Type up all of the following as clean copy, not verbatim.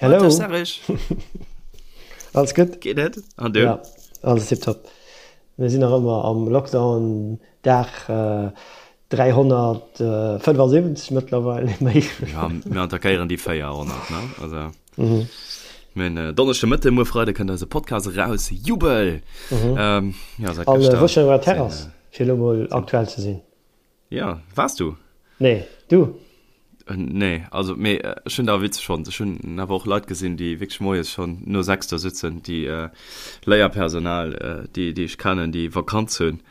Hello. Dag Serge. Alles gutt? Geet et? An du? Ja, alles tiptop. Mir sinn nach ëmmer am Lockdown, Dag 375 mëttlerweil, méi. Ja, mir attackéieren déi 400, ne? Also, mir hunn Donneschde Mëtte, muer Freide kënnt eise Podcast eraus. Jubel! Ja, säit gëschter. An wou schon op der Terrass, fir elo mol aktuell ze sinn. Ja, waars du? Nee, du? Nee, also mee ech hunn der witzeg fonnt. Ech hunn awer och Leit gesinn, déi wierklech moies schonn no 6 do sitzen, déi Léierpersonal, déi déi ech kennen, déi Vakanz hunn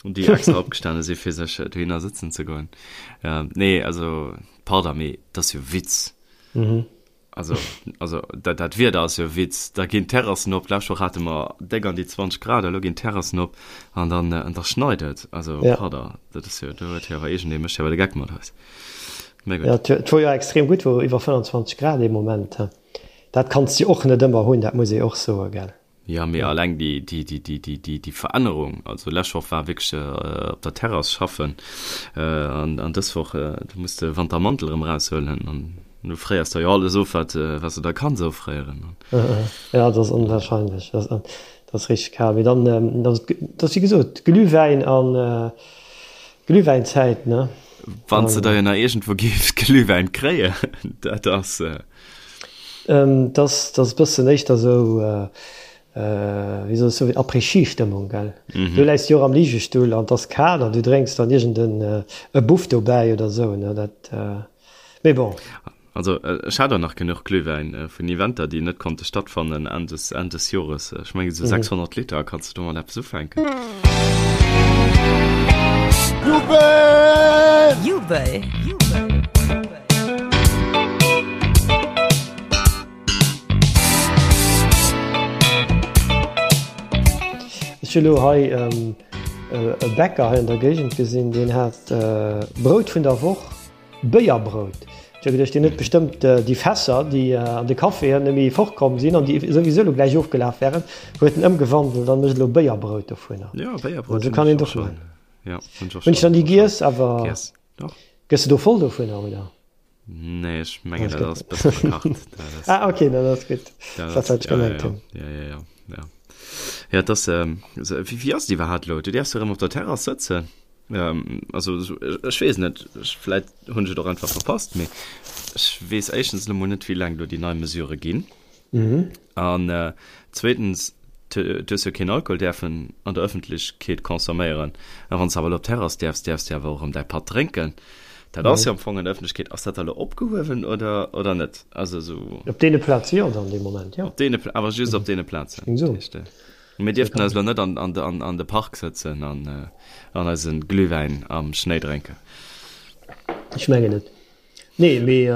an déi extra opgestane si fir sech dohinner sëtzen ze goen. Nee, also pardon, mee dat ass jo Witz. Also, also dat, dat Wieder ass jo e Witz. Da ginn d'Terrassen op. D'lescht Woch hate mer déck an déi 20 Grad, elo ginn d'Terrassen op an dann, an da schneit et. Also, Ja. pardon, dat ass jo, do huet jo awer iergendee mécht jo awer de Geck mat eis. Mä gutt. Ja, et et wor jo extrem gutt, wor iwwer 25 Grad ee Moment. Dat kanns de jo och net ëmmer hunn, dat muss ee och soen, gell. Jo, mee alleng déi Verännerung, also lescht Woch war wierklech op der Terrass schaffen an dës Woch, do muss de Wantermantel erëm eraushuelen an du fréiers der jo alles of, wat s de da kanns offréieren. Jo, dat ass onwahrscheinlech, dat ass richteg kal. Mee dann, dat ass wéi gesot Glühwäin an Glühwäinzäit, ne? Wann s de der jo nach iergendwou géifs Glühwäin kréien, dat ass. Dat ass e bëssen éischter esou, wéi soll ech soen, Après-Ski-Stëmmung, gell? Du läis jo och am Ligestull an et ass kal an du drénks dann iergend e Buff dobäi oder esou, ne? Dat, mee bon. Also ech hat och nach genuch Glühwäin vun Eventer, déi net konnte stattfannen Enn des, Enn des Jores. Ech mengen esou 600 Liter, kanns de domat eppes ufänken? Jubel! Jubel! Ech hu lo hei e Bäcker hei an der Géigend gesinn, deen hat Brout vun der Woch, Béierbrout. Ech hu geduecht, deen huet bestëmmt déi Fässer, déi an de Caféen net méi fortkomm sinn an déi souwisou lo gläich ofgelaf wären, huet en ëmgewandelt an mécht elo Béierbrout dovunner. Jo, Béierbrout hunn ech och schonn. Hunn ech dann déi giess, awer. Gëss de do voll dovunner, oder? Nee, ech mengen dat ass bësse verkacht. Ah, okay, dat ass gutt. Dat ass, wat ech gemengt hunn. Ja, ja, ja, ja. Ja, dat ass, wéi, wéi ass et iwwerhaapt elo? Du däerfs jo erëm op der Terrass sëtzen. Also, ech weess net, ech, vläit hunn ech et och einfach verpasst, mee ech weess éischtens elo mol net, wéi laang do déi nei Mesurë ginn. An zweetens, du hues jo keen Alkohol däerfen an der Ëffentlechkeet consomméieren. A wann s de awer elo op d'Terrass däerfs, däerfs de awer och erëm däi Patt drénken. Dat ass jo am Fong an der Ëffentlechkeet. Ass dat da elo opgehuewen oder, oder net? Also esou. Op deene Plaze jo dann dee Moment, jo. Op deene, awer just op deene Plazen. Ech géing soen. Mir dierften eis elo net an, an, an, an de Park sëtzen an, an eise Glühwäin am Schnéi drénken. Ech mengen net. Nee, mee.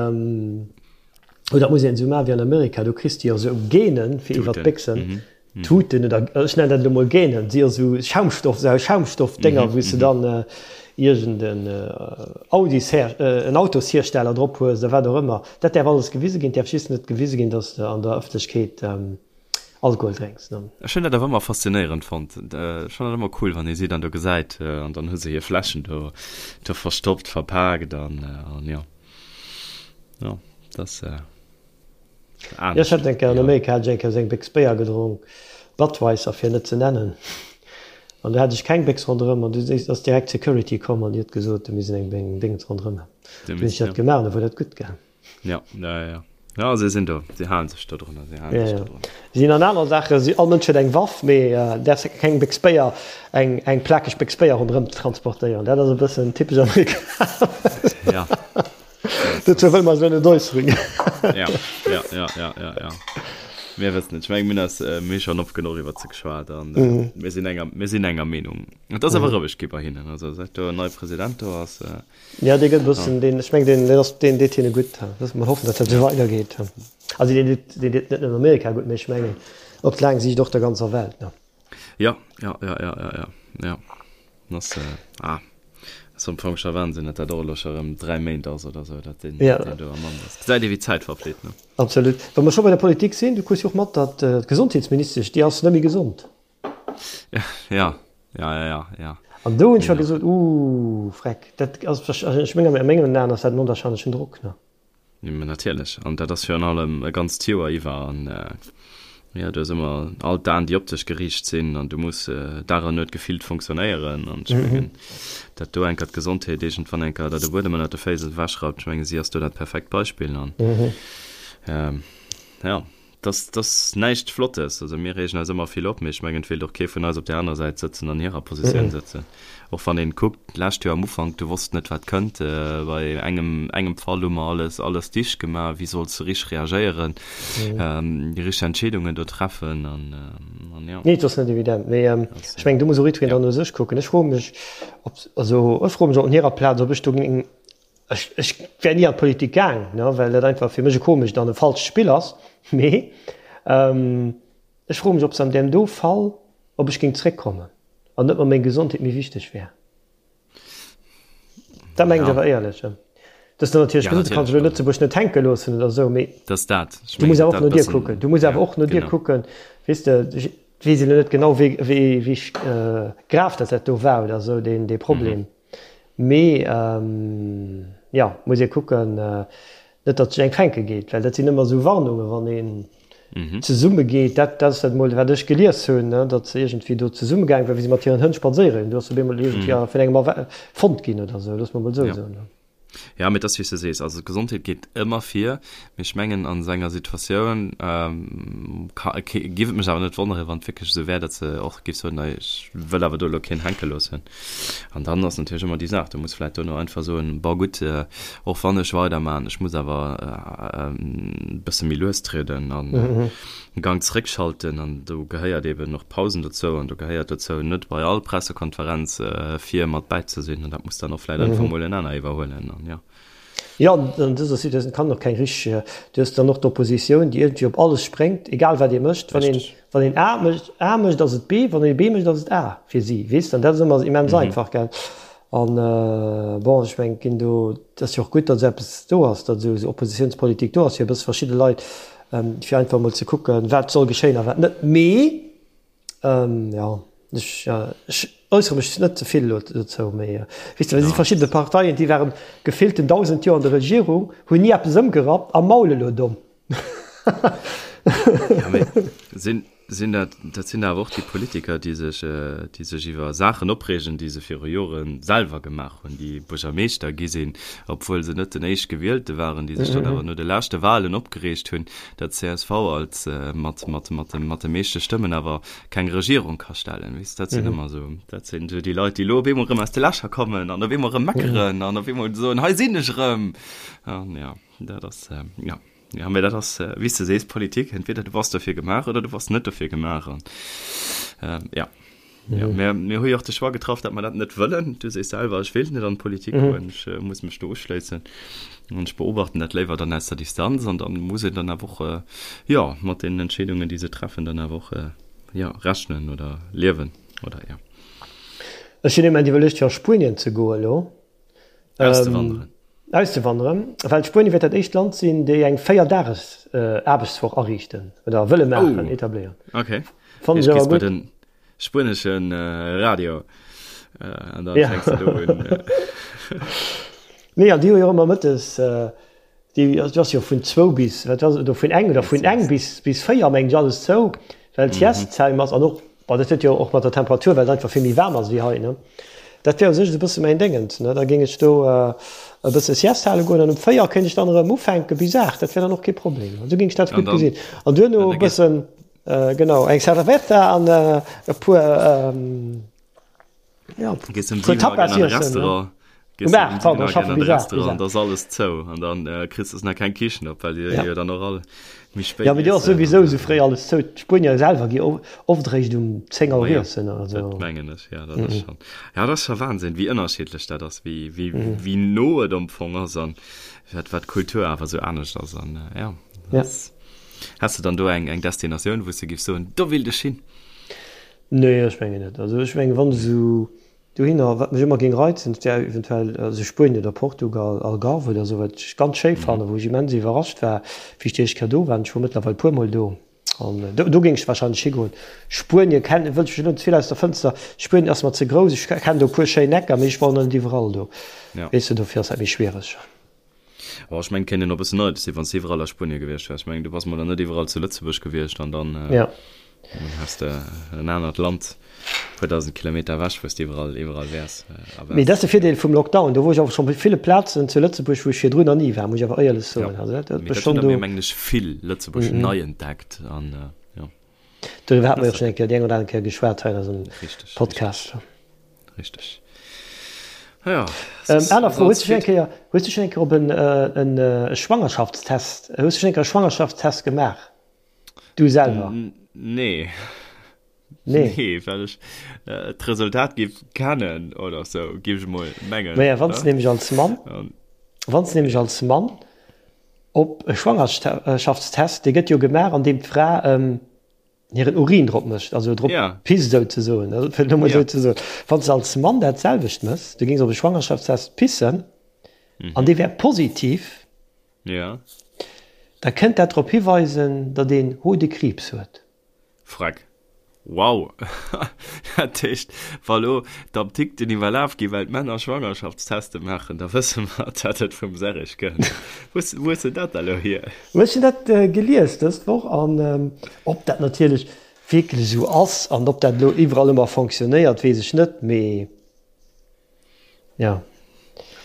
Oder dat muss een esou maachen wéi an Amerika, do kriss de jo esou Gainen fir iwwer d'Béchsen, Tuten oder ech nennen dat elo mol Gainen, si jo esou Schaumstoff, esou Schaumstoffdénger, wou s de dann iergend en Audisher, en Autoshiersteller drop hues oder wat och ëmmer. Dat däerf alles gewise ginn, et däerf just net gewise ginn, datt s de an der Ëffentlechkeet Alkohol drénks. Ech hunn dat awer ëmmer faszinéierend fonnt. Ech fannen dat ëmmer cool, wann ee si dann do gesäit an dann hu se hir Fläschen do verstoppt, verpaakt an jo. Ja, das äh, Ja, ech hat eng Kéier an Amerika hat ech eng Kéier esou eng Béchs Béier gedronk, Budweiser fir net ze nennen, an do hat ech keng Béchs ronderëm an du ass direkt d'Security komm an déi huet gesot, do misst een eng Déngens ronderëm hunn. Dunn hunn ech dat gemaach an da wor dat gutt gaang. Ja, ja, ja. Ja, se sinn do, se halen sech do drun, se halen sech do drun. Si sinn an aner Saachen, si, all Mënsch huet eng Waff, mee däerfs keng Béchs Béier, eng, eng plakeg Béchs Béier ronderëm transportéieren. Dat ass e bëssen typesch amerikanesch. Ja. Dozou wëlle mer eis elo net äusseren. Ja, ja, ja, ja, ja, ja. Mir wëssen et. Ech menge mir hunn eis, mir hu schonn oft genuch iwwert se geschwat an mir sinn enger, mir sinn enger Meenung. Et ass awer roueg gi bei hinnen, also säit do en neie President do ass. Ja, dee gëtt e bëssen, deen, ech mengen, deen, deen ass, deen deet hinne gutt. Loosse mer hoffen, datt dat esou weidergeet. Also deen deet, deen deet net nëmmen Amerika gutt, mee ech mengen op laang Siicht och der ganzer Welt, ne? Ja, ja, ja, ja, ja, ja, ja. Ass, ah, ass am Fong scho Wahnsinn, datt dat och elo scho erëm 3 Méint ass oder esou, datt deen, Ja. deen do am Amt ass. Gesäit ee wéi d'Zäit verflitt, ne? Absolut. Wa mer scho bei der Politik sinn, du krus jo och mat, datt d'Gesondheetsministesch, déi ass net méi gesond. Ja, ja, ja, ja, ja. An do hunn ech scho gesot, Uuh, Freck, dat ass, ech mengen, a mengen Aen ass dat en onwahrscheinlechen Drock, ne? Mä natierlech, an dat ass virun allem e ganzt Joer iwwer an jo, du hues ëmmer all d'Aen, déi op dech geriicht sinn an du muss Dag an Nuet gefillt funktionéieren an ech mengen, dat do enker d'Gesondheet iergendwann enker der de Buedem ënnert de Féiss ewechrappt, ech menge si ass do dat perfekt Beispill an jo. Dat ass näischt Flottes. Also mir reegen eis ëmmer vill op, mee ech mengen, et wéilt och kee vun eis op där anerer Säit sëtzen, an hirer Positioun sëtzen. Och wann een kuckt, d'lescht Joer am Ufank, du wosst net, wat kënnt. Bei engem, engem Fall hu mer alles, alles dicht gemaach. Wéi solls de richteg reagéieren, déi richteg Entscheedungen do treffen an, an jo. Nee, et ass net evident. Mee ech mengen, do muss och jiddwereen dann no sech kucken. Ech froe mech, ob, also ech froe mech op hirer Plaz, ob ech do géing, Ech, ech wär ni an d'Politik gaang, ne, well dat einfach fir mech e komescht an e falscht Spill ass. Mee ech froe mech, ob se an deem do Fall, ob ech géing zréckkommen an net mer meng Gesondheet méi wichteg wär. Dat mengen ech awer éierlech. Dat ass dann natierlech gesot, du kanns elo Lëtzebuerg net hänke loossen oder esou, mee du muss awer och no dir kucken. Du muss awer och no dir kucken, weess de. Ech weess elo net genau, wéi, wéi, wéi grav dat dat do war oder esou, deen, dee Problem. Mee jo, muss ee kucken, net datt sech eng fänke geet, well dat sinn ëmmer esou Warnungen, wann een zesumme geet. Dat ass dat emol, wat ech gelies hunn, datt se iergendwéi do zesumme gaange waren, wéi se mat hiren Hënn spadséiere ginn. Do ass op eemol iergendwéi vun engem fonnt ginn oder esou, loosse mer emol esou soen. Ja, mee et ass wéi s de sees, also d'Gesondheet geet ëmmer vir, mee ech mengen an esou enger Situatioun ka, géif et mech awer net wonneren, wann et wierklech esou wär, datt se och géif soen, nei ech wëll awer do elo keen hänke loossen. An dann ass natierlech ëmmer déi Saach, du muss vläicht dono einfach soen, bon gutt, och wann ech weidermachen, ech muss awer e bësse méi lues trieden an e Gang zeréckschalten an do gehéiert eben och Pausen dozou an do gehéiert dozou net bei all Pressekonferenz vir mat bäi ze sinn an dat muss dann och vläit einfach mol en aner iwwerhuelen an jo. Jo, an dëser Situatioun kann och keng richteg, du hues dann och d'Oppositioun, déi iergendwéi op alles spréngt, egal wat ee mécht. Wann een, wann een A mécht, A mécht, ass et B, wann ee B mécht, ass et A fir si, weess de. An dat ass ëmmer immens einfach, gell. An bon, ech mengen, et ginn do, et ass jo och gutt, datt esou eppes do ass, datt esou Oppositionspolitik do ass, fir e bësse verschidde Leit, fir einfach emol ze kucken, wat soll geschéien a wat net. Mee jo, ech, ech äussere mech net ze vill elo dozou. Mee weess de, et si verschidde Parteien, déi waren gefillten 1.000 Joer an der Regierung, hunn ni eppes ëmgerappt a maule elo domm. Ja, mee sinn, sinn dat, dat sinn awer och déi Politiker, déi sech, déi sech iwwer Saachen opreegen, déi se viru Jore selwer gemaach hunn, déi Buergermeeschter gi sinn, obwuel se net den Éischtgewielte waren, déi sech dann awer no de leschte Wahlen opgereegt hunn, datt csv als mat, mat, mat de, mat de meeschte Stëmmen awer keng Regierung ka stellen. Weess, dat sinn ëmmer esou, dat sinn esou déi Leit, déi elo op eemol erëm aus de Lächer kommen an op eemol erëm meckeren an op eemol soen, hei sinn ech erëm. An jo, dat ass, jo. Ja, mee dat ass, wéi s de sees, Politik, entweder du bass dofir gemaach oder du bass net dofir gemaach. An ja, ja mir, mir hu jo och de Choix getraff, datt mer dat net wëllen. Du sees selwer, ech wéilt net an d'Politik goen, ech muss mech do uschléissen an ech beobachten dat léiwer dann aus der Distanz an dann muss een dann awer och, jo, mat deenen Entscheedungen, déi se treffen, dann awer och, jo, rechnen oder liewen oder jo. Ech hunn immens iwwerluecht, fir a Spuenien ze goen elo. Auszewanderen. Auszewanderen, well Spuenie wäert dat éischt Land sinn, déi eng 4 Dages Aarbechtswoch ariichten oder wëlle maachen, etabléieren. Okay. Fannen ech awer gutt. Den spueneschen Radio an dann fänks de do un. Nee, an déi hu jo ëmmer mëttes Déi ass jo vun zwou bis, wat ass et, oder vun eng, oder vun eng bis, bis 4 mengen ech alles zou, well d'Sieste-Zäim ass an och, bon dat huet jo och mat der Temperatur, well et einfach vill méi waarm ass wéi hei, ne. Dat wär u sech esou e bësse mäin Déngens, ne. Da géing ech do e bësse Sieste hale goen an um 4 kéint ech dann erëm ufänke bis 8, dat wär dann och kee Problem. Esou géing ech dat gutt gesinn. An duerno e bëssen, genau, eng Cerveza an e puer, Ja, Gees um 7 Auer an de Restaurant. Gees um 7 Auer an de Restaurant, an da ass alles zou. An dann äh, kriss du nach keng Kichen op, well déi ja. jo dann och all méi spéit. Ja, mee déi ass souwisou sou fréi alles zou. D'Spuenier selwer gi oft eréischt um 10 Auer iessen oder sou. Dat mengen ech, ja, dat ass schon. Ja, dat ass scho Wahnsinn, wéi ënnerschiddlech dat ass, wéi, wéi, mm. wéi no et am Fong ass an wat, wat d'Kultur awer sou anescht ass. An äh, ja. ja. Has du dann do eng, eng Destinatioun, wou s du giffs soen, do willt ech hin? Nee, ech mengen net. Also ech mengen, wann esou dohinner, wat mech ëmmer géing reizen, dat wär eventuell esou Spuenien oder Portugal, Algarve oder esou, wat ech ganz schéi fannen, wou ech immens iwwerrascht war, wéi ech déi éischt Kéier do war. Ech wor mëttlerweil e puermol do an do, do géing ech wahrscheinlech higoen. Spuenie kennen, wëll ech mech elo net ze vill aus der Fënster, Spuenien ass mer ze grouss, ech kennen do e puer schéin Ecker, mee ech wor nach net iwwerall do, weess de, dofir ass dat méi schwiereg. Oh, ech mengen, et kéint een och e bëssen neidesch sinn, wann s de iwwerall a Spuenie gewiescht wäers. Ech mengen, du bass mol nach net iwwerall zu Lëtzebuerg gewiescht an dann ja. häss de en anert Land, e puer 1.000 Kilometer ewech, wou s de iwwerall, iwwerall wäers a Mee dat ass de Virdeel vum Lockdown. Do wor ech awer schonn op ville Plazen zu Lëtzebuerg, wou ech virdrun nach ni war, muss ech awer éierlech soen. Ja. Also dat huet mech schonn do. Mee dat hunn der, mengen ech, vill Lëtzebuerg nei entdeckt an jo. Doriwwer hate mer jo och schonn eng Kéier, déi eng oder aner Kéier geschwat hei an eisem Podcast. Richteg. Ja. Aner Fro, hues du schonn eng Kéier, hues du schonn eng Kéier op en e Schwangerschaftstest, hues du schonn eng Kéier e Schwangerschaftstest gemaach? Du selwer? Nee. Nee. Nee, well ech d'Resultat géif kennen oder sou, géif ech emol mengen. Maja, wann s de nämlech als Mann, wann s de nämlech als Mann op e Schwangerschaftstest, dee gëtt jo gemaach, an deem d'Fra hiren Urin drop mécht, also drop pisst souzesoen, fir et elo mol esou ze soen. Wann s de als Mann dat selwecht méchs, du géings op e Schwangerschaftstest pissen an dee wär positiv, da kënnt dat drop hiweisen, datt een Hodekriibs huet. Freck. Wow! Dat heescht, wa lo d'Apdikten iwwerlaf ginn, well d'Männer Schwangerschaftsteste maachen, da wësse mer, datt et vum Serrig kënnt. Wou hues de dat da lo hier? Ech hunn dat gelies dës Woch an ob dat natierlech wierklech esou ass an ob dat elo iwwerall ëmmer fonctionnéiert, weess ech net, mee jo.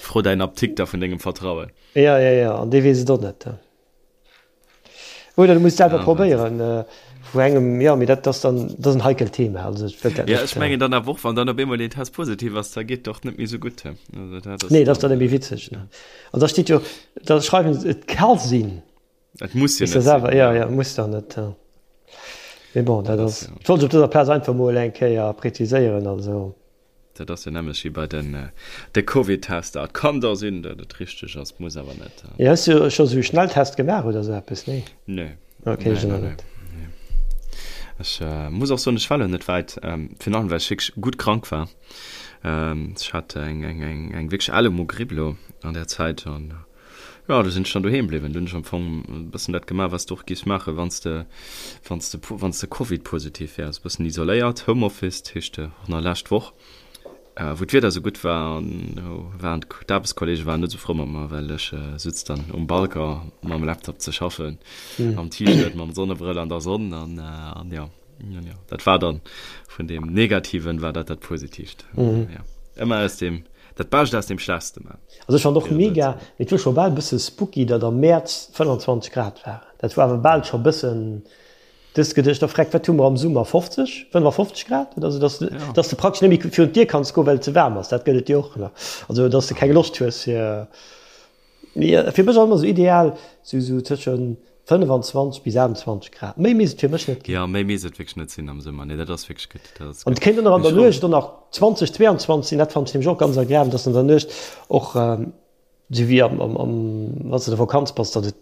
Fro däin Apdikter vun dengem Vertrauen. Jo, jo, jo, an dee weess et och net. Oder du muss selwer ja, probéieren äh, vu engem ja mir dat das dann das en heikelt Thema also ich dat ja, ich mengen dann awer och wann dann op eemol den Test positiv ass da geet doch net méi sou gutt also, dat ass nee das dann méi witzeg ne an da steht jo da schreiwen se et ka sinn Et muss jo net selwer ja ja muss dann net ja. Mais bon dat ass ja. wollt op dëser Plaz einfach mol eng Kéier präziséieren also. Dat ass jo nämmlecht wéi bei den de Covid-Tester. Et kann da sinn, datt et richteg ass, muss awer net. Jo, hues du scho sou Schnelltest gemaach oder sou eppes? Nee? Nee. Ok, ech och net. Ech muss och soen, ech war elo net wäit, virun allem well ech wierklech gutt krank war. Ech hat eng eng eng eng wierklech Ellemogripp elo an där Zäit an Jo, du sinn ech dann doheem bliwwen. Du hunn ech am Fong e bëssen dat gemaach, wat s de och giffs maachen, wann s de, wann s de, wann s de Covid-positiv wäers. E bëssen isoléiert, Homeoffice, dat heescht och nach lescht Woch, wou d'Wieder esou gutt war, an do waren d'Aarbechtskollege waren net esou frou mat mer, well ech sutz dann um Balcon mam Laptop ze schaffen, am T-Shirt, mam Sonnebrëll an der Sonn an, an jo. Ja, dat war dann vun dem Negativen war dat dat Positiivt. Mhm. Ja. Ëmmer aus dem dat Bescht aus dem Schlechtste man. Also ech fand och mega, mee et wor scho bal bësse spooky, datt am Mäerz 25 Grad waren. Dat war awer bal scho bëssen, du hues geduecht, oh freck, wat hu mer am Summer, 50, 55 Grad oder sou, datt du, ja. datt du praktesch net méi virun d'Dier kanns goen, well et ze waarm ass. Dat gëtt et jo och nach. Also datt du keng Loscht hues fir. Mee fir mech ass ëmmer sou ideal sou sou tëschen 25 bis 28 Grad. Méi misst et fir mech net ginn. Jo, méi misst et wierklech net sinn am Summer. Nee, dat ass wierklech gutt. Dat ass An et kéint och nach an der Nuecht och nach 20, 22 sinn. Dat fannen ech nämlech och ganz agreabel, dass an der Nuecht och sou wéi am am am wann s de an der Vakanz bass, datt et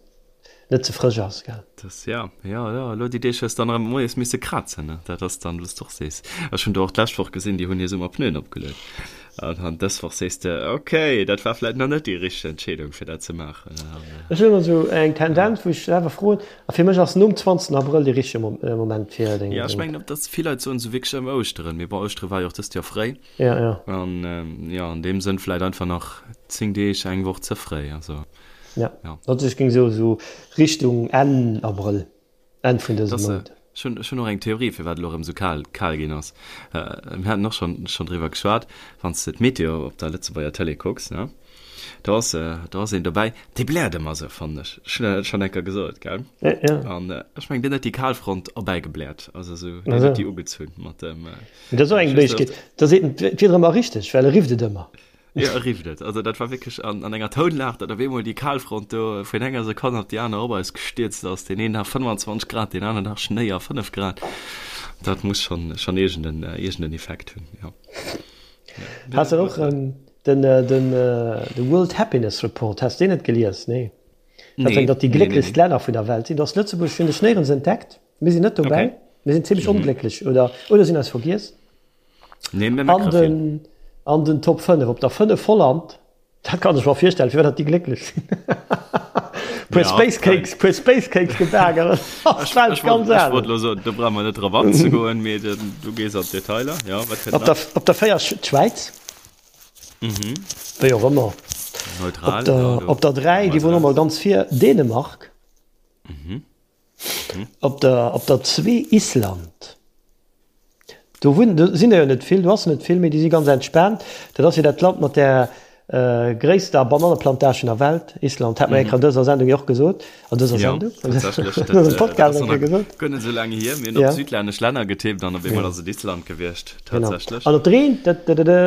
net ze frësch ass, gell. Das, ja, ja, ja, elo déi Deeg hues dann erëm moies misse krazen, ne? Dat ass dann, wou s de och sees. Ech hunn do och d'lescht Woch gesinn, déi hunn hir Summerpneuen opgeluet. An an dës Woch sees de, okay, dat war vläit nach net déi richteg Entscheedung, fir dat ze maachen. An, Ech hunn ëmmer esou eng Tendenz, wou ech selwer froen, a fir mech ass nom 20. Abrëll dee richtege Moment fir deng. Ja, ech mengen, dass vill Leit soen esou wierklech ëm Ouschteren, mee bon, Ouschtere war jo och dëst Joer fréi. Ja, ja. An, jo, an deem Sënn vläit einfach nach 10 Deeg, eng Woch ze fréi, also. Ja, ja. Also ech géing soen esou Richtung Enn Abrëll, Enn vun dësem Mount. Ech hunn, ech hunn och eng Theorie, firwat elo erëm esou kal, kal ginn ass. Mir haten och schonn, schonn driwwer geschwat, wann s de d'Meteo op der Lëtzebuerger Tëlee kucks, ne, do ass, do ass een dobäi, dee bläert ëmmer esou, fannen ech. Ech hunn dat schonn eng Kéier gesot, gell? Ja, ja. An ech mengen, deen huet déi Kalfront erbäigebläert, also esou, deen huet déi ugezunn mat dem. Mee dat ass och eng Méiglechkeet, da seet en d'Wieder ëmmer richteg, well e rifft et ëmmer. Jo, e rifft et. Also dat war wierklech an, an enger Tounlag, datt op eemol déi Kalfront do vun enger Sekonn op déi aner op eis gestierzt ass. Deen een Dag 25 Grad, deen aneren Dag Schnéi a 5 Grad. Dat muss schonn, schonn iergenden, iergenden Effekt hunn, jo. Has de och den, den, de World Happiness Report, has deen net gelies? Nee. Dat nee, datt déi glécklechst nee, nee, nee. Länner vun der Welt sinn. Do ass Lëtzebuerg, hunn ech néierens entdeckt. Mir sinn net dobäi. Okay. Mir sinn zimmlech mhm. onglécklech oder, oder sinn eis vergiess. Nee, mir An den, an den Top 5, op der 5 Holland, dat kann ech mer virstellen, firwat dat déi glécklech sinn. Puer ja, Space Cakes, puer Space Cakes gebaken, ass d'Welt ganz anescht. Ech wollt lo soen, do brauche mer net drop anzegoen, mee du gees an d'Detailer. Ja, wat kënnt nach? Op der, op der 4 d'Schwäiz. Mhm. Wéi och ëmmer. Neutral. Op der, op der 3, déi wor nochmol ganz vir, Dänemark. Mhm. Op der, op der 2 Island. Do wunnen, do sinn der jo net vill, do ass net vill, mee déi si ganz entspaant. Dat ass jo dat Land mat där gréisster Bananneplantagen der Welt, Island. Hat mer eng Kéier an dëser Sendung jo och gesot. An dëser Sendung? Jo, tatsächlech. An dësem Podcast eng Kéier gesot. Guer net esou laang hier. Mir hunn op südlännesch Länner getippt an op eemol ass et Island gewiescht. Tatsächlech. An op der 1, dëdëdë,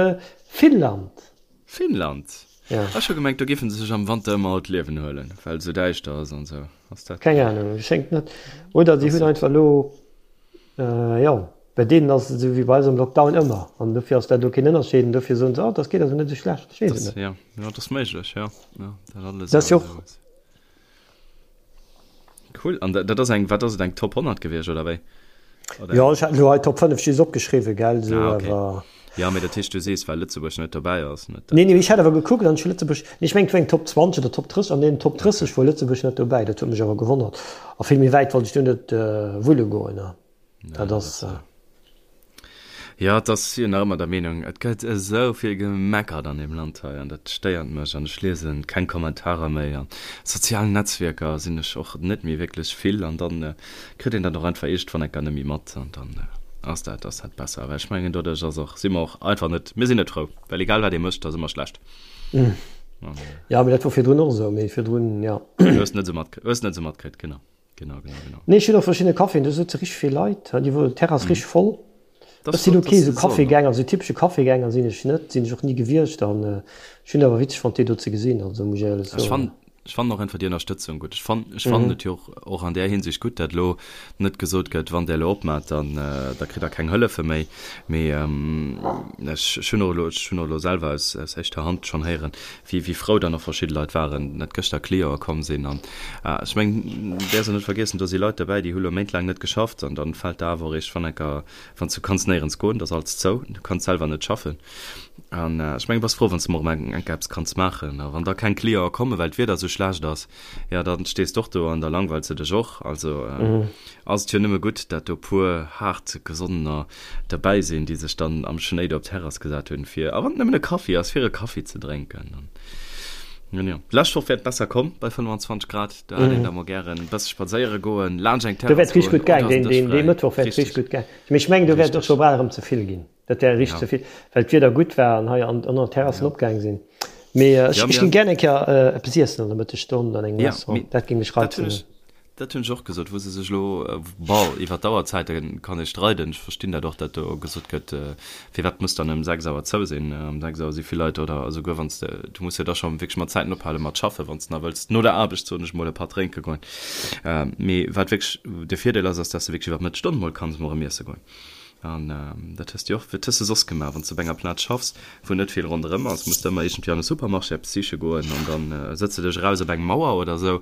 Finnland. Finnland? Ja. Ech hu gemengt, do géife se sech am Wanter ëmmer all d'Liewen huelen, well et esou däischter ass an esou. Ass dat. Keng Ahnung, schéngt net. Oder si hunn einfach elo, jo, bei deenen ass et esou wéi bei eis am Lockdown ëmmer an dofir ass dat elo keen Ënnerscheed an dofir soen se, oh, dat geet also net esou schlecht. Ech weess et net. Jo, jo, dat ass méiglech, jo, jo, dat alles. Dat ass jo och. Cool, an dat ass eng, wat ass et, eng Top 100 gewiescht oder wéi? Oder jo, ech hat elo hei Top 5 just opgeschriwwen, gell, sou ah, okay. awer. Ja, mee dat heescht, du sees, well Lëtzebuerg net dobäi ass, net dat. Nee, nee, ech hat awer gekuckt an ech hu Lëtzebuerg, nee, ech mengen et war eng Top 20 oder Top 30, an deenen Top 30 okay. wor Lëtzebuerg net dobäi, dat huet mech awer gewonnert. A vill méi wäit wollt ech do net wulle goen, ne. Dat ass. Jo, et ass jo nach ëmmer der Meenung, et gëtt esou vill gemeckert an deem Land hei an dat stéiert mech an ech liese keng Kommentarer méi. An sozialen Netzwierker sinn ech och net méi wierklech vill an dann kritt een dat och einfach iergendwann enker net méi mat an dann ass dat ass dat besser. Well ech mengen doduerch ass och, si mer och einfach net, mir sinn net frou, well egal wat ee mécht, ass ëmmer schlecht. Jo, mee dat wor virdrun och esou, mee virdrun, jo. Hues net esou mat, hues net esou matkritt, genau. Genau, genau, genau. Nee, ech hunn och verschidde Caféen, do sëtze richteg vill Leit, déi wou d'Terrass richteg voll. Ech sinn ok esou Cafégänger, esou typesche Cafégänger sinn ech net, sinn ech och ni gewiescht an ech hunn awer witzeg fonnt déi do ze gesinn, also muss ech éierlech soen. Ech fannen, ech fannen och einfach déi Ënnerstëtzung gutt. Ech fannen, ech fannen et jo och, och an där Hinsicht gutt, dat elo net gesot gëtt, wann där elo opmaacht, dann da kritt der keng Hëllefe méi. Mee ech, ech hunn och elo, ech hunn och elo selwer aus, aus éischter Hand schonn héieren, wéi wéi frou dann och verschidde Leit waren, dat gëschter Cliente komm sinn. An ech mengen, däerfs och net vergiessen, do si Leit dobäi, déi hu lo méintlaang net geschafft an dann fält der awer och eescht wann enker, wann s du kanns néierens goen, et ass alles zou, du kanns selwer net schaffen. An ech mengen, bass frou, wann s de mol erëm eng Kéier eppes kanns maachen. A wann da keng Cliente kommen, well d'Wieder esou schlecht ass, jo, da stees de och do an da langweils de dech och. Also ass et jo nëmme gutt, dat do puer haart Gesonnener derbäi sinn, déi sech dann am Schnéi do op d'Terrass gesat hunn, fir, a wann et nëmmen e Kaffi ass, fir e Kaffi ze drénken. An jo, d'lescht Woch wär et besser komm bei 25 Grad, do hätt een da mol gären e bësse spadséiere goen, laanscht eng Do wäert Terrass richteg goen gutt gaang, oder ass deen, den Dësch deen, dee fräi. Mëttwoch wäert richteg Richteg, gutt gaang. Mee ech mengen, do wäert et och richteg. scho bal erëm ze vill ginn. Dat wär richteg Ja. ze vill, well d'Wieder gutt war an hei an an der Terrassen Ja. opgaang sinn. Mee ech, Ja, ech mir, géing gären eng Kéier eppes iessen an der Mëttesstonn an engem ja, Restaurant. mee Dat géing mech dat hunn reizen. ech, Dat hunn ech och gesot, wou se sech elo, bon, iwwer d'Auerzäite kann ee streiden, ech verstinn dat och, datt do gesot gëtt, firwat muss dann ëm 6 Auer zou sinn, ëm 6 Auer si vill Leit, oder esouguer wann s de, du muss jo da scho wierklech mat Zäiten ophale mat schaffen, wann s de nach wëlls no der Aarbecht, soen ech mol, e Patt drénke goen. Mee wat wierklech de Virdeel ass, ass, datt s de wierklech iwwer d'Mëttesstonn mol kanns emol erëm iesse goen. An dat hues de jo och, wat hues de soss gemaach? Wann s de op enger Plaz schaffs, wou net vill ronderëm ass, muss de ëmmer iergendwéi an e Supermarché eppes siche goen an dann sëtz de dech eraus op eng Mauer oder esou.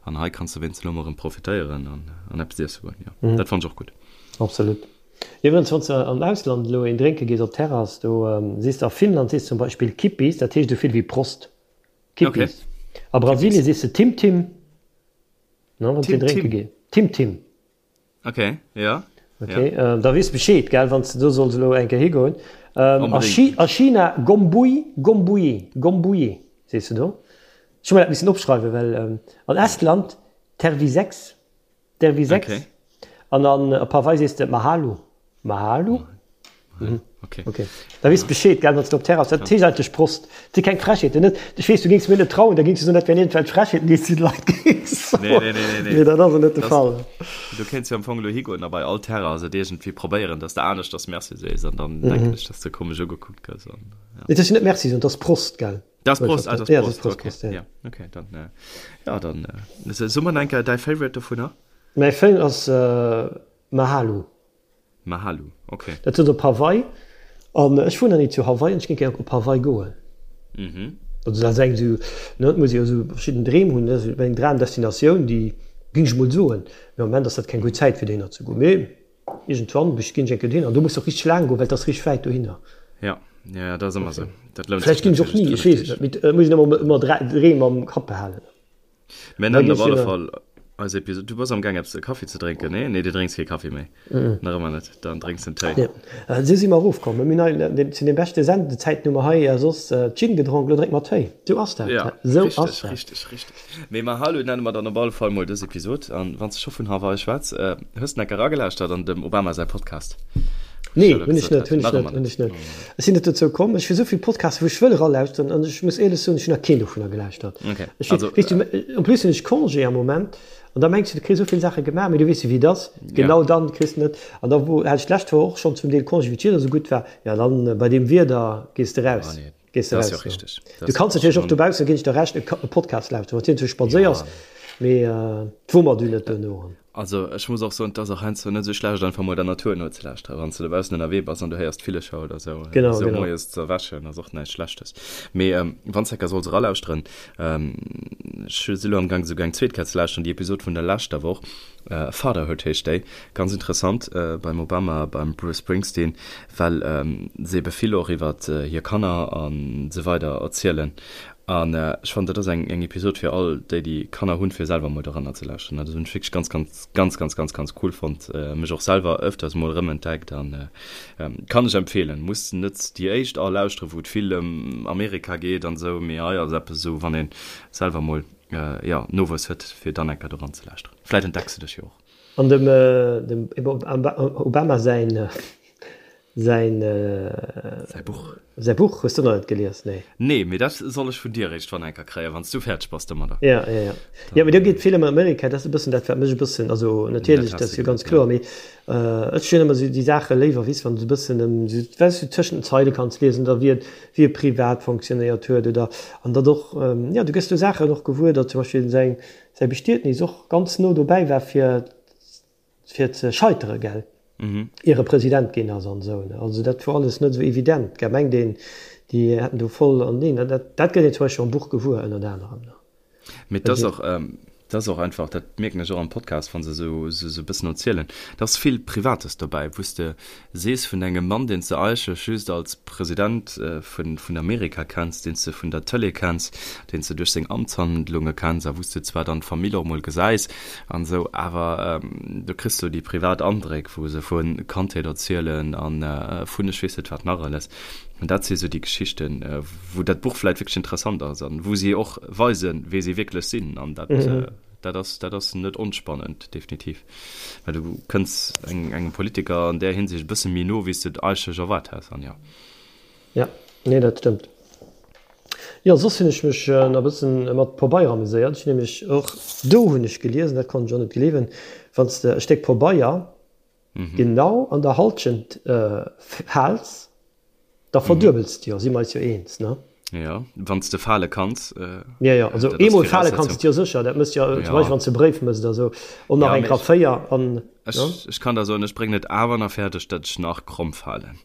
An hei kanns de wéinst elo mol erëm profitéieren an an eppes iesse goen. Jo, dat fannen ech och gutt. Absolut. Iwwregens, wann s de am Ausland elo een drénke gees op Terrass, do sees de a Finnland sees de zum Beispill Kippis, dat heescht esou vill wéi Prost. Kippis. A Brasilien sees de Tim Tim, ne, wann s de een drénke gees. Tim Tim. Ok, ja. Ok, ja. Äh, da weess Bescheed, gell, wann du do solls elo eng Kéier higoen. Ähm, a, Chi a China Gombui, Gombui, Gombui, sees du do. Ech hu mer dat missen opschreiwen, well ähm, an Estland Tervisex, Tervisex. Okay. An an op Hawaii sees de Mahalo, Mahalo. Mhm. Okay. Okay. Da weess Bescheed, gell, wann du op Terrass, dat heescht eigentlech Prost. Dat si keng Frechheeten, net? Ech weess, du géings mir net trauen, da géings du soen, dat wären iergendwelch Frechheeten, déi s du de Leit géings soen. Nee, nee, nee, nee, nee. Mee dat ass jo net de Das, Fall. du kéints jo am Fong elo higoen a bei all Terrass et iergendwéi probéieren, dass de aneschters Merci sees an dann denken ech, dass de komesch ugekuckt gëss an, ja. Nee, dat ass jo net Merci soen, dat ass Prost, gell? Dat ass Prost, ah, dat ass Ja, dat ass Prost, Prost, okay. Prost, ja. Ja, okay, dann, ja, dann, so mer enker däi Favorite dovunner? Mäi Favorite ass Mahalo. Mahalu, ok. Dat ass op Hawaii. An ech wunnen ni zu Hawaii an ech géing gär op Hawaii goen. Mhm. Also dat ass eng esou, ne, et muss ee jo esou verschidden Dreem hunn, ne, esou eng Dramdestinatioun, déi géing ech mol soen. Mee am Moment ass dat keng gutt Zäit fir dohinner ze goen. Mee iergendwann bech ginn ech eng Kéier dohinner. An do muss de och richteg laang goen, well et ass richteg wäit dohinner. Ja, ja, ja, dat ass ëmmer esou. Dat lount Vläicht sech ginn ech och natierlech ni, ech weess et net. Mee et muss een ëmmer, ëmmer Dreem am Kapp behalen. Mir Da nennen ginn op ech alle dohinner. Fall. Eis Episode. Du bass am Gaang eppes e Kaffi ze drénken, nee? Nee, du drénks kee Kaffi méi. Nach ëmmer net. Dann drénks en Téi. Nee. Esou si mer erofkomm. Mir hunn hei zu den beschte Sendezäiten hu mer hei soss Gin gedronk, elo drénke mer Téi. Esou ass dat. Ja, Esou richteg, ass dat. richteg, richteg. Mee Mahalo nenne mer dann op alle Fall mol dës Episod. An wann s de scho vun Hawaii schwätz, hues de enker eragelauschtert an dem Obama säi Podcast? Nee, hunn ech net, hunn ech net, hunn ech net. Ech sinn net dozou komm. Ech hu sou vill Podcasten, wou ech wëll eralauschteren an ech muss éierlech soen, ech hunn nach keen dovunner gelauschtert. Okay. Ech also, weess du, en plus hunn ech Congé am Moment an da mengs du, du kriss esou vill Saache gemaach, mee du weess jo wéi et ass, genau dann kriss de net. An da wou hat ech d'lescht Woch och schonn zum Deel Congé, wéi d'Wieder esou gutt war, jo dann bei deem Wieder gees de raus. Oh nee. Gees de raus. Jo richtig. Du kanns natierlech och dobaussen, ginn ech der Recht, e Podcast lauschteren, wann s du spadséiers, mee et wummert du net duerno. Also ech muss och soen, et ass och heiansdo net esou schlecht einfach mol der Natur nozelauschteren, wann s du dobaussen ënnerwee bass an du héiers d'Villecher oder esou. Genau, esou genau. Moies ze erwächen ass och näischt Schlechtes. Mee wann s enker solls eralauschteren, ech si lo amgaang esouguer eng zweet Kéier ze lauschteren, déi Episod vun der leschter Woch, Fatherhood heescht déi, ganz interessant, beim Obama, beim Bruce Springsteen, well se ebe vill och iwwer hir Kanner a sou weider erzielen. An ech fannen, dat ass eng eng Episod fir all déi, déi Kanner hunn, fir selwer emol doranner ze lauschteren. Dat hunn ech wierklech ganz, ganz, ganz, ganz, ganz, ganz cool fonnt. Mech och selwer ëfters emol erëmentdeckt an kann ech empfeelen. Muss net déi éischt all lauschteren, wou et vill ëm Amerika geet an esou, mee hei ass eppes esou, wann ee selwer emol, jo, Nowuess huet, fir dann eng Kéier doran ze lauschteren. Vläit entdecks de dech jo och. An dem dem Obama säin säin Säi Buch. Säi Buch hues du nach net gelies, nee? Nee, mee dat soll ech vun dir eréischt wann enker kréien, wann s du fäerdeg bass domadder. Ja, ja, ja. Jo, mee do geet vill ëm Amerika, dat ass e bëssen dat, wat mech e bëssen, also natierlech, dat ass jo ganz kloer, mee ech hunn ëmmer esou déi Saache léiwer, weess, wann et e bëssen ëm esou, weess du, tëschent den Zeile kanns liesen oder wéi et, wéi e privat fonctionnéiert huet oder, an datt och, jo, du gëss do Saachen och gewuer, datt zum Beispill säin, säi Bestietnis och ganz no dobäi war fir fir ze scheitere, gell, ier e President ginn ass an esou. Also dat wor alles net esou evident, gell, mengt een, déi hätten do voll an neen, dat dat gëtt een zum Beispill am Buch gewuer, ënnert anerem. Mee et ass och, et ass och einfach, dat mierken ech och am Podcast, wa se esou esou e bëssen erzielen, et ass vill Privates dobäi, wou s de sees vun engem Mann, deen s de eigentlech just als President vun vun Amerika kenns, deen s de vun der Tëlee kenns, deen s de duerch seng Amtshandlunge kenns a wou s de zwar dann d'Famill och mol gesäis an esou, awer do kriss du déi privat Andréck, wou se vu Kandheet erzielen a vun ech weess net wat nach alles. An dat si sou déi Geschichten, wou dat Buch vläit wierklech interessant ass an wou si och weisen, wee si wierklech sinn. An dat, dat ass, dat ass net onspannend, definitiv. Well du kënns engem Politiker an där Hinsicht e bësse méi no, wéi s de et eigentlech erwaart häss. An jo. Ja, nee, dat stëmmt. Jo, soss hunn ech mech nach e bëssen mat Pobeier ameséiert. Ech hunn nämlech och, do hunn ech geliesen, dat konnt ech och net gleewen, wann s de e Stéck Pobeier genau an der Halschent faals, Da verduebels de jo, si mer eis jo eens, ne? Jo, wann s de fale kanns. Jo, jo, also eemol fale kanns de jo sécher, dat mëss jo zum Beispill wann s de e Bréif mëss oder esou, och nach eng Kéier 4 an. Ech kann der soen, ech bréngen et awer nach fäerdeg, datt ech nach kromm falen,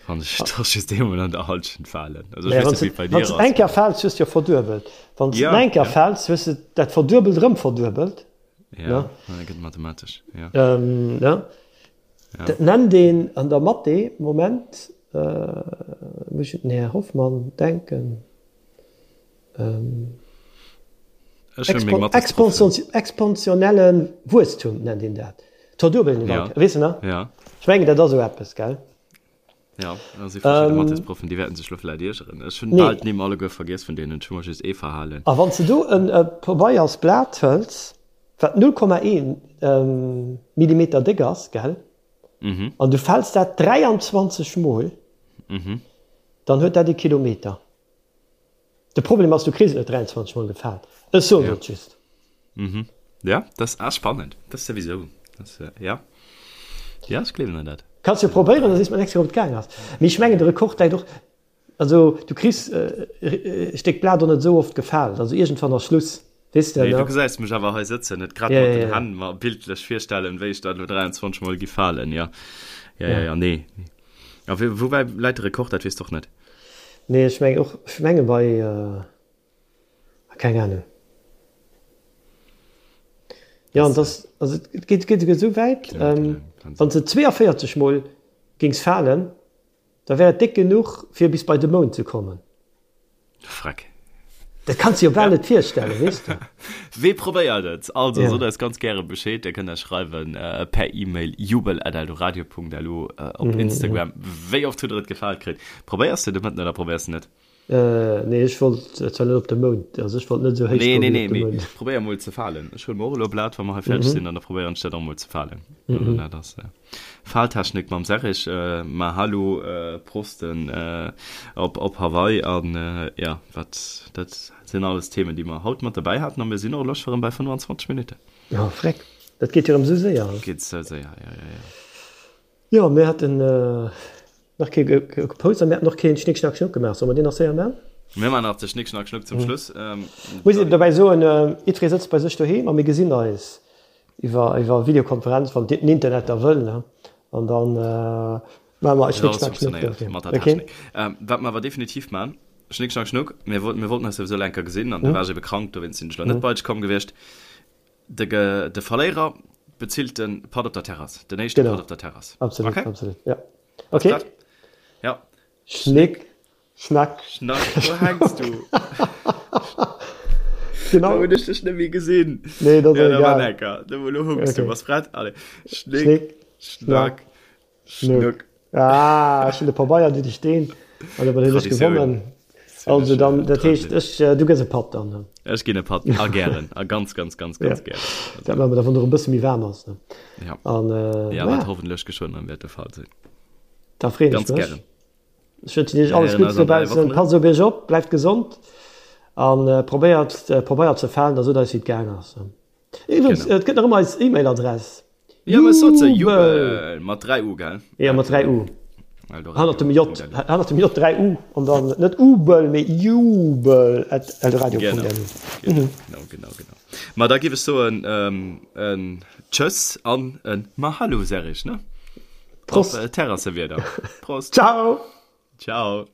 wann ech da just eemol an der Halschent falen. Also ech weess net, wéi et bei dir ass. Wann s de eng Kéier faals, hues de jo verduebelt. Wann s de eng Kéier faals, hues de dat Verduebelt erëm verduebelt. Jo, dat gëtt mathematesch, jo. Dat nennt een an der Mathé, Moment, muss ech un den Här Hoffmann denken, exponentielle Wuesstum nennt een dat. D'Verduebelen iwwer eng Kéier, weess de nach? Ech mengen, dat ass esou eppes, gell? Jo, do si verschidde Mathésproffen, déi wäerten sech elo vläicht iergeren. Ech hunn bal d'Nimm alleguer vergiess vun deenen, ech hu mer just ee verhalen. A wann s de do e Pabeiersblat hëls, wat 0,1 Millimeter déck ass, gell, an du fäls dat 23 Mol, dann huet dat e Kilometer. De Problem ass, du kriss et net 23 Mol gefaalt. Ech soen et just. Mhm. Ja, dat ass spannend. Dat souwisou. Dat, ja. Ja, ech gleewen der dat. Kanns jo probéieren, da sees mer d'nächst Kéier, ob et gaang ass. Mee ech mengen, de Rekord läit och, also du kriss e Stéck Blat och net esou oft gefaalt. Also iergendwann ass Schluss, weess de, Nee, du ne? gesäis mech awer hei sëtzen, net grad mat den Hänn mer bildlech virstellen, wéi ech dat elo 23 Mol gi falen. Ja, ja, ja, ja, nee. A woubäi läit de Rekord, dat weess de och net? Nee, ech mengen och, ech menge bei, keng Ahnung. Jo, an dass, also et geet, geet esouguer esou wäit, wann s de 42 mol géings falen, da wär et déck genuch fir bis bei de Mound ze kommen. Freck. Dat kanns de jo bal net virstellen, weess de. Wee probéiert et? Also, sot eis ganz gäre Bescheed. Dir kënnt eis schreiwen per E-Mail jubel@eldoradio.lu, op Instagram. Wéi oft hutt der et gefaalt kritt? Probéiers de de Mëtten oder probéiers de net? Nee, ech wollt zwar net op de Mound, also ech wollt net esou héich goen wéi op de Mound. Nee, nee, nee, mee probéier mol ze falen. Ech huele mer och elo e Blat, wa mer hei fäerdeg sinn, an da probéieren ech dat och mol ze falen. Also dat ass Faltechnik mam Serrig. Mahalo, Prosten op op Hawaii an jo, wat dat sinn alles Themen, déi mer haut mat dobäi haten a mir sinn och elo scho rëm bei 25 Minutten. Jo, freck, dat geet jo rëm esou séier. Geet esou séier, jo, jo, jo. Jo, mir haten nach kee gepost a mir haten och keen Schnick Schnack Schnuck gemaach. Solle mer deen nach séier man? Mir man nach de Schnick Schnack Schnuck zum Schluss. Muss een dobäi soen, jiddweree sëtzt bei sech doheem a mir gesinn eis iwwer iwwer Videokonferenz, wann den Internet da wëll, ne? An dann maache mer Schnick Schnack Schnuck dofir. Mat der Technik. Wat mer awer definitiv man, Schnick Schnack Schnuck, mir wollten mir wollten eis souwisou elo eng Kéier gesinn an du waars ebe krank, dowéinst sinn ech elo net bei dech komm gewiescht. De de Verléierer bezilt de Patt op der Terrass. Den éischte Patt op der Terrass. Absolut, okay? absolut, ja. Okay. Ja. Schnick, Schnack. Schnack, wo hängst du? Genau. Da hunn ech dech net méi gesinn. Nee, dat ass ja, egal. Lecker. Da lo hunkst okay. du. Was prett? Allez. Schnick, Schnick Schnack. Schnuck. Ah, ech hunn de Pabeier, du de Steen. An da hunn ech gewonnen. Also dann, dat heescht, ech, du gëss e Patt dann. Ech ginn e Patt, a gären, a ganz, ganz, ganz, ganz gären. Dat maache mer da, wann et och e bësse méi waarm ass. Ja. An, ja, wat hoffentlech geschwënn erëm wäert de Fall sinn. Da freeën ech mech. Ganz gären. Ech wënschen iech alles Guddes dobaussen. Passt op iech op, bleift gesond a probéiert, probéiert ze falen, da sot eis, wéi et gaang ass. Iwwregens, et gëtt nach ëmmer eis E-Mail-Adress. Ja, mä sot se, Jubel, mat 3 U, gell? Ja, mat 3 U. Hannert dem J, hannert dem J 3 U an dann net Ubel, mee jubel at eldoradio.lu. Genau, genau, genau, genau. Ma da giff ech soen, en Tschëss an en Mahalo, Serrig, ne? Prost. Op Terrassewieder. Prost. Ciao. Ciao.